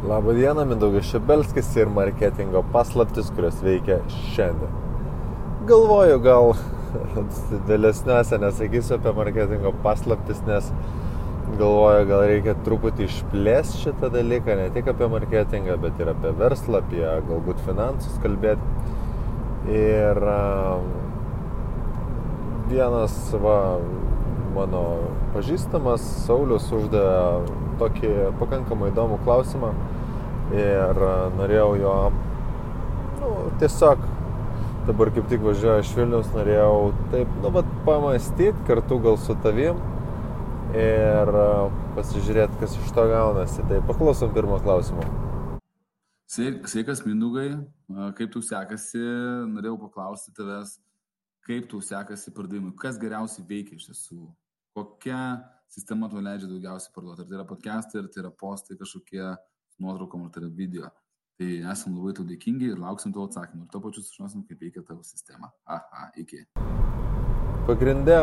Labą dieną, Mindaugas Šebelskis ir marketingo paslaptis, kurios veikia šiandien. Galvoju, gal vėlesniuose nesakysiu apie marketingo paslaptis, nes galvoju, gal reikia truputį išplėsti šitą dalyką, ne tik apie marketingą, bet ir apie verslą, apie galbūt finansus kalbėti. Ir vienas mano pažįstamas Saulius uždavė tokį pakankamai įdomų klausimą ir norėjau jo tiesiog dabar kaip tik važiuoju iš Vilniaus, norėjau taip pamąstyti kartu gal su tavim ir pasižiūrėti, kas iš to gaunasi. Tai paklausom pirmo klausimo. Sveikas, Mindaugai, kaip tau sekasi? Norėjau paklausti tavęs, kaip tau sekasi pardavimui, kas geriausiai veikia iš tiesų, kokia sistema tau leidžia daugiausiai parduoti, ar tai yra podcastai, ar tai yra postai kažkokie nuotraukom, ar tai yra video. Tai esam labai tau dėkingi ir lauksim tavo atsakymų. Ir to pačiu sužinosim, kaip veikia tavo sistema. Iki. Pagrindė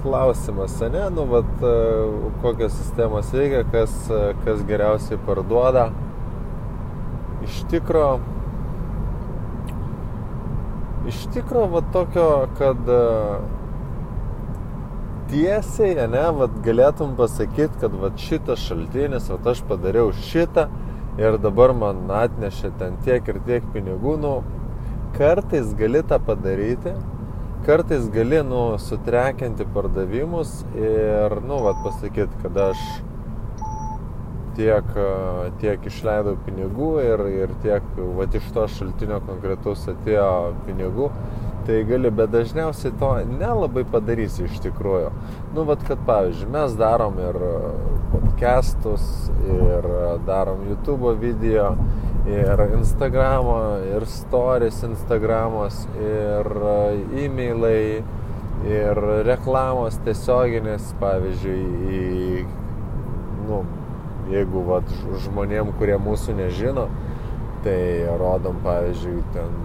klausimas, ne? Kokios sistemos veikia, kas geriausiai parduoda. Iš tikro tokio, kad tiesiai, galėtum pasakyti, kad šitas šaltinis, aš padariau šitą ir dabar man atnešė ten tiek ir tiek pinigų. Kartais gali tą padaryti, kartais gali sutrekinti pardavimus ir pasakyti, kad aš tiek išleidau pinigų ir tiek iš to šaltinio konkretaus atėjo pinigų. Tai gali, bet dažniausiai to nelabai padarysi iš tikrųjų. Kad pavyzdžiui, mes darom ir podcastus, ir darom YouTube video, ir Instagramo, ir stories Instagramos, ir e-mailai, ir reklamos tiesioginės, pavyzdžiui, jeigu žmonėm, kurie mūsų nežino, tai rodom, pavyzdžiui, ten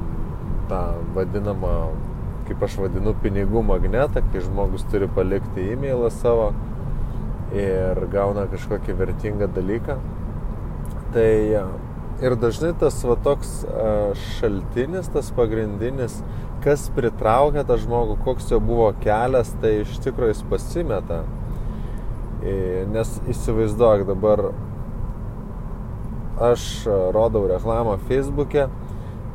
tą vadinamą, kaip aš vadinu, pinigų magnetą, kai žmogus turi palikti e-mailą savo ir gauna kažkokį vertingą dalyką. Tai ir dažnai tas toks šaltinis, tas pagrindinis, kas pritraukia tą žmogų, koks jo buvo kelias, tai iš tikrųjų jis pasimeta. Nes įsivaizduok, dabar aš rodau reklamą Facebook'e,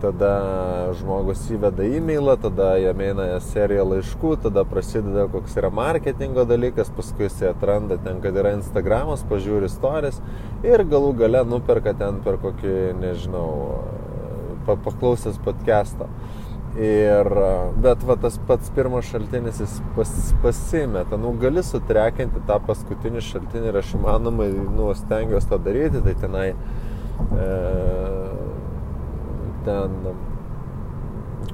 tada žmogus įveda e-mailą, tada jam eina serija laiškų, tada prasideda koks yra marketingo dalykas, paskui jis atranda ten, kad yra Instagramas, pažiūri stories ir galų gale nuperka ten per kokį, nežinau, paklausęs podcast'o. Bet tas pats pirmas šaltinis jis pasimeta. Gali sutrekinti tą paskutinį šaltinį ir aš įmanomai stengiuosi tą daryti, tai tenai ten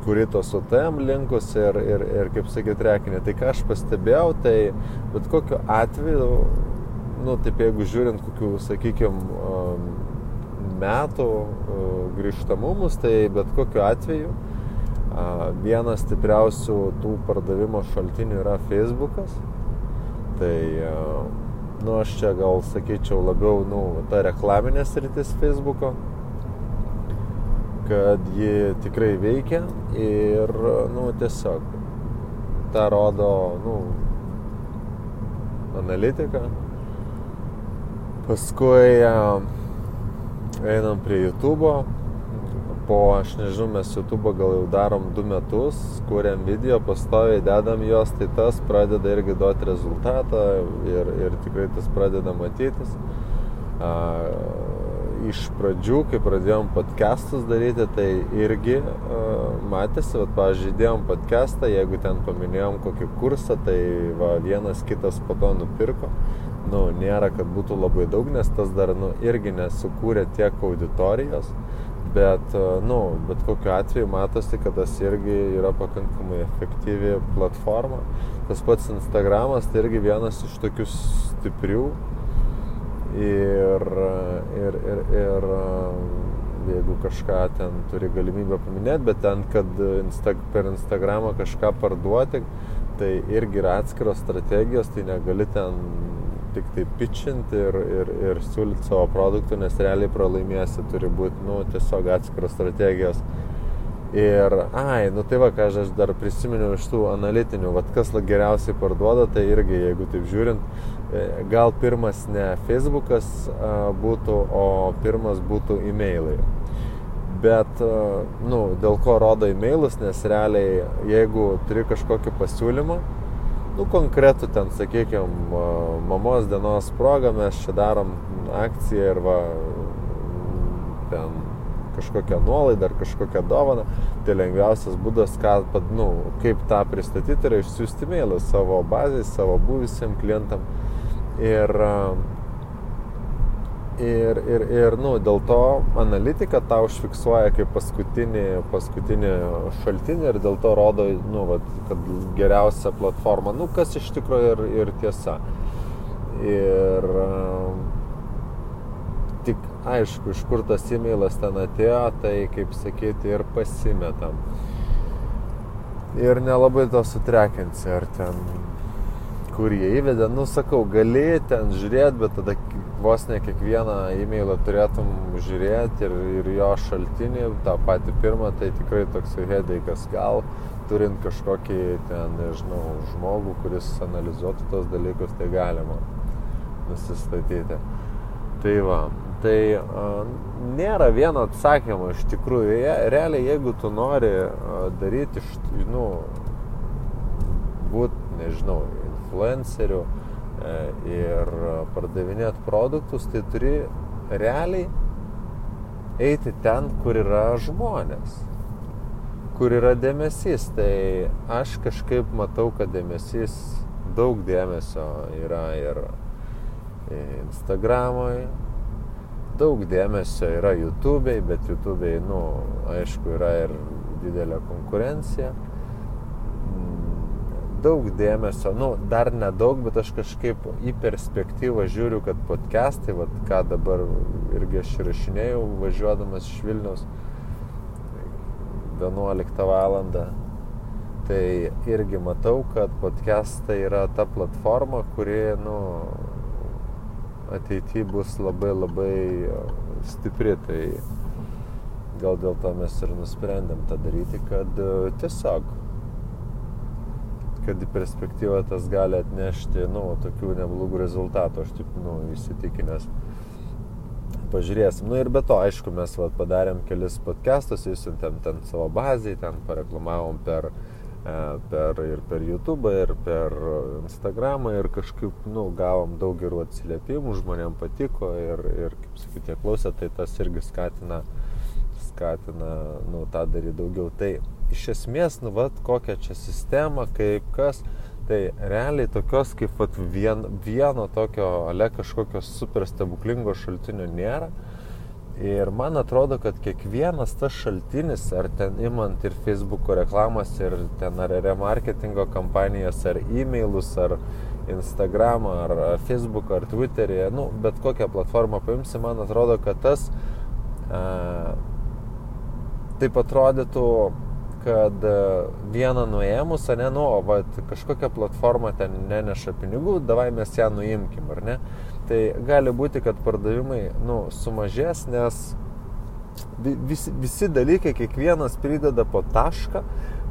kuri tos UTM linkus ir kaip sakyti, rekinė. Tai ką aš pastebėjau, tai bet kokiu atveju, taip jeigu žiūrint kokių, sakykime, metų grįžtamumus, tai bet kokiu atveju vienas stipriausių tų pardavimo šaltinių yra Facebookas. Tai aš čia gal sakyčiau labiau ta reklaminė sritis Facebooko, kad ji tikrai veikia ir tiesiog tą rodo analitika. Paskui einam prie YouTube'o. Aš nežinau, mes YouTube'o gal jau darom 2 metus, kuriam video, pastoviai dedam juos, tai tas pradeda irgi duoti rezultatą ir tikrai tas pradeda matytis. Iš pradžių, kai pradėjom podcastus daryti, tai irgi matėsi, pavyzdžiui, dėjom podcastą, jeigu ten paminėjom kokį kursą, tai vienas kitas po to nupirko. Nėra, kad būtų labai daug, nes tas dar irgi nesukūrė tiek auditorijos, bet kokiu atveju matosi, kad tas irgi yra pakankamai efektyvi platforma. Tas pats Instagramas, tai irgi vienas iš tokių stiprių. Ir jeigu kažką ten turi galimybę paminėti, bet ten, kad per Instagramą kažką parduoti, tai irgi yra atskiros strategijos, tai negali ten tik tai pitchinti ir siūlyti savo produktų, nes realiai pralaimėsi, turi būti, tiesiog atskiros strategijos. Ir, tai va, ką aš dar prisiminiau iš tų analitinių, kas geriausiai parduoda, tai irgi, jeigu taip žiūrint, gal pirmas ne Facebookas būtų, o pirmas būtų e-mailai. Bet, dėl ko rodo e-mailus, nes realiai, jeigu turi kažkokį pasiūlymą, konkretų ten, sakykime, mamos dienos progą, mes čia darom akciją ir ten kažkokią nuolaidą ar kažkokią dovaną, tai lengviausias būdas, kaip tą pristatyti, yra išsiųsti mailą savo bazai, savo buvusiem klientam. Ir dėl to analitika tą užfiksuoja kaip paskutinį šaltinį ir dėl to rodo, kad geriausia platforma, kas iš tikrųjų ir tiesa. Ir tik aišku, iš kur tas e-mailas ten atėjo, tai, kaip sakyti, ir pasimetam. Ir nelabai to sutrekinsi, ar ten, kur jie įvedė, sakau, gali ten žiūrėti, bet tada vos ne kiekvieną e-mailą turėtum žiūrėti ir jo šaltinį, tą patį pirmą, tai tikrai toks headackas, gal turint kažkokį ten, nežinau, žmogų, kuris analizuotų tos dalykus, tai galima nusistatyti. Tai va. Tai nėra vieno atsakymo iš tikrųjų. Realiai, jeigu tu nori daryti, būti, nežinau, influenceriu ir pardavinėti produktus, tai turi realiai eiti ten, kur yra žmonės, kur yra dėmesys. Tai aš kažkaip matau, kad daug dėmesio yra ir Instagram'oj, daug dėmesio yra YouTube'ai, bet YouTube'ai, aišku, yra ir didelė konkurencija. Daug dėmesio, dar nedaug, bet aš kažkaip į perspektyvą žiūriu, kad podcastai, ką dabar irgi aš įrašinėjau, važiuodamas iš Vilniaus 11 valandą, tai irgi matau, kad podcastai yra ta platforma, kuri, ateityje bus labai labai stipri, tai gal dėl to mes ir nusprendėm tą daryti, kad tiesiog, kad į perspektyvą tas gali atnešti, tokių neblogų rezultatų, aš taip, įsitikinęs. Pažiūrėsim. Ir be to, aišku, mes padarėm kelis podcastus, įsiuntėm ten savo bazai, ten pareklamavom per YouTube ir per Instagramą ir kažkaip, gavom daug gerų atsiliepimų, žmonėm patiko ir kaip sakyti, jie klausė, tai tas irgi skatina, tą daryti daugiau. Tai iš esmės, kokią čia sistemą, kaip kas, tai realiai tokios kaip vieno tokio, kažkokio super stebuklingo šaltinio nėra. Ir man atrodo, kad kiekvienas tas šaltinis, ar ten imant ir Facebook'o reklamas, ir ten ar remarketingo kampanijas, ar e-mailus, ar Instagramą, ar Facebook'o, ar Twitter'į, bet kokią platformą paimsi, man atrodo, kad tas taip atrodytų, kad vieną nuėmus, kažkokią platformą ten neneša pinigų, davai mes ją nuimkim, ar ne? Tai gali būti, kad pardavimai, sumažės, nes visi dalykai, kiekvienas prideda po tašką,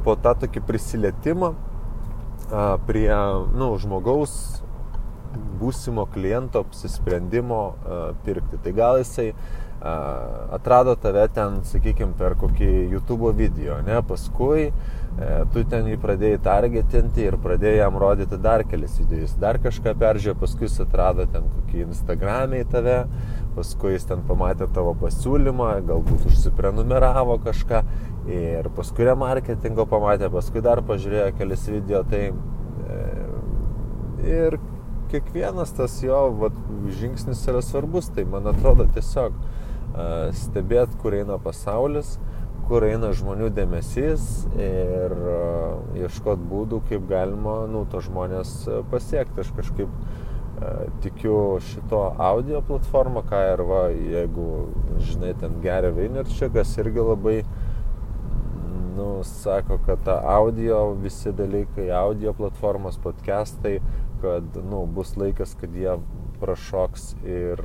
po tą tokį prisilietimą prie, žmogaus būsimo kliento apsisprendimo pirkti. Tai gal jisai atrado tave ten, sakykime, per kokį YouTube video, ne? Paskui tu ten jį pradėjai targetinti ir pradėjai jam rodyti dar kelis videojus, dar kažką peržiūrėjo, paskui jis atrado ten kokį Instagram'e į tave, paskui jis ten pamatė tavo pasiūlymą, galbūt užsiprenumeravo kažką ir paskui remarketingo pamatė, paskui dar pažiūrėjo kelis video, tai ir kiekvienas tas jo žingsnis yra svarbus, tai man atrodo tiesiog stebėt, kur eina pasaulis, kur eina žmonių dėmesys ir ieškot būdų, kaip galima, to žmonės pasiekti. Aš kažkaip tikiu šito audio platformą, ką ir jeigu, žinai, ten Gary Vaynerchukas irgi labai, sako, kad ta audio, visi dalykai, audio platformos, podcastai kad, bus laikas, kad jie prašoks ir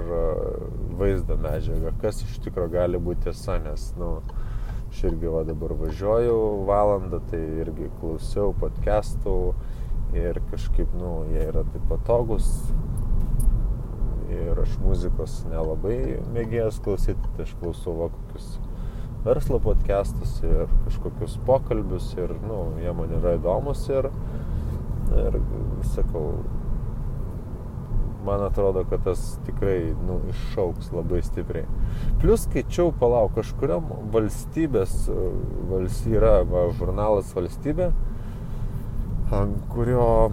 vaizdo medžiagą, kas iš tikro gali būti tiesa, nes, aš irgi dabar važiuoju valandą, tai irgi klausiau podcastų ir kažkaip, jie yra taip patogus ir aš muzikos nelabai mėgėjęs klausyti, tai aš klausau kokius verslo podcastus ir kažkokius pokalbius ir, jie man yra įdomus ir sakau, man atrodo, kad tas tikrai, iššauks labai stipriai. Plius skaičiau, kažkuriam valstybės, yra žurnalas Valstybė, kurio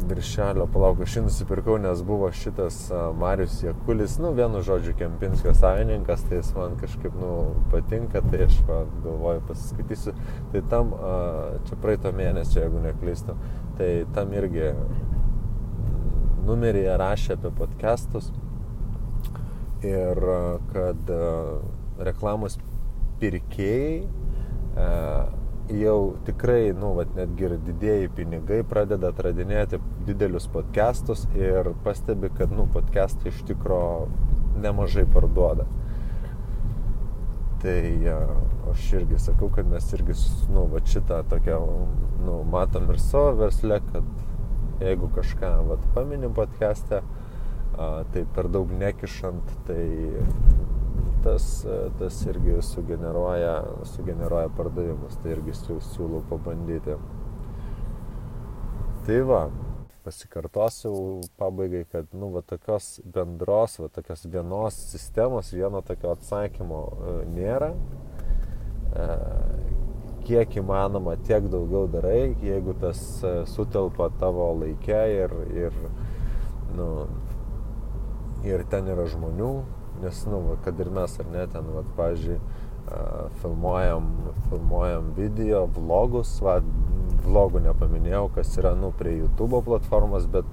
viršelio, aš jį nusipirkau, nes buvo šitas Marius Jakulis, vienu žodžiu Kempinskio savininkas, tai jis man kažkaip, patinka, tai aš galvoju pasiskaitysiu. Tai tam, čia praeito mėnesio, jeigu neklystu, tai tam irgi numeryje rašė apie podcastus ir kad reklamos pirkėjai jau tikrai, netgi ir didieji pinigai pradeda atradinėti didelius podcastus ir pastebi, kad, podcastai iš tikro nemažai parduoda. Tai aš irgi sakau, kad mes irgi, šitą tokią, matom ir savo versle, kad jeigu kažką, paminim podcast'e, tai per daug nekišant, tai tas irgi sugeneruoja pardavimus, tai irgi siūlau pabandyti. Tai pasikartosiu pabaigai, kad, tokios bendros, tokios vienos sistemos, vieno tokio atsakymo nėra. Kiek įmanoma, tiek daugiau darai, jeigu tas sutelpa tavo laike ir ten yra žmonių, nes, kad ir mes ar ne, ten, pavyzdžiui, filmuojam video, vlogus, vlogų nepaminėjau, kas yra, prie YouTube platformos, bet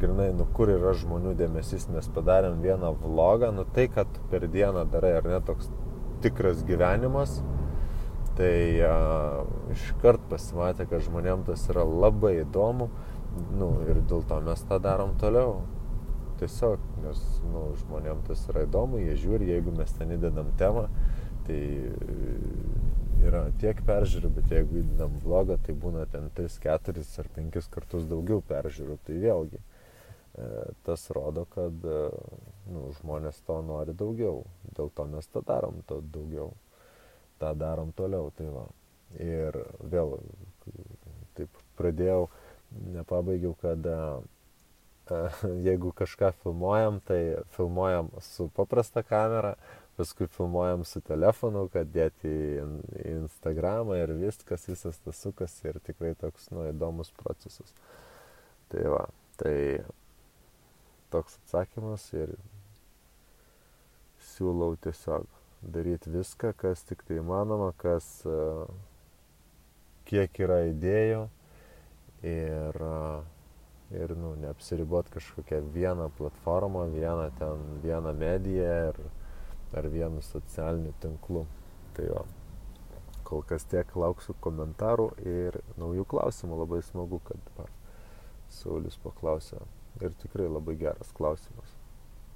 grinai, kur yra žmonių dėmesys, mes padarėm vieną vlogą, tai, kad per dieną darai, ar ne, toks tikras gyvenimas, tai iškart pasimatė, kad žmonėm tas yra labai įdomu, ir dėl to mes tą darom toliau. Tiesiog, nes žmonėm tas yra įdomu, jie žiūri, jeigu mes ten įdedam temą, tai yra tiek peržiūrų, bet jeigu įdedam vlogą, tai būna ten 3, 4 ar 5 kartus daugiau peržiūrų, tai vėlgi tas rodo, kad žmonės to nori daugiau, dėl to mes tą darom to daugiau, tą darom toliau, tai ir vėl taip pradėjau, nepabaigiau, kad jeigu kažką filmuojam, tai filmuojam su paprasta kamera, paskui filmuojam su telefonu, kad dėti į Instagramą ir visas tas sukasi ir tikrai toks, įdomus procesas. Tai toks atsakymas ir siūlau tiesiog daryti viską, kas tik tai įmanoma, kiek yra idėjų ir neapsiribot kažkokią vieną platformą, vieną mediją ar vienu socialiniu tinklu. Tai kol kas tiek, lauksiu komentarų ir naujų klausimų. Labai smagu, kad Saulius paklausė ir tikrai labai geras klausimas.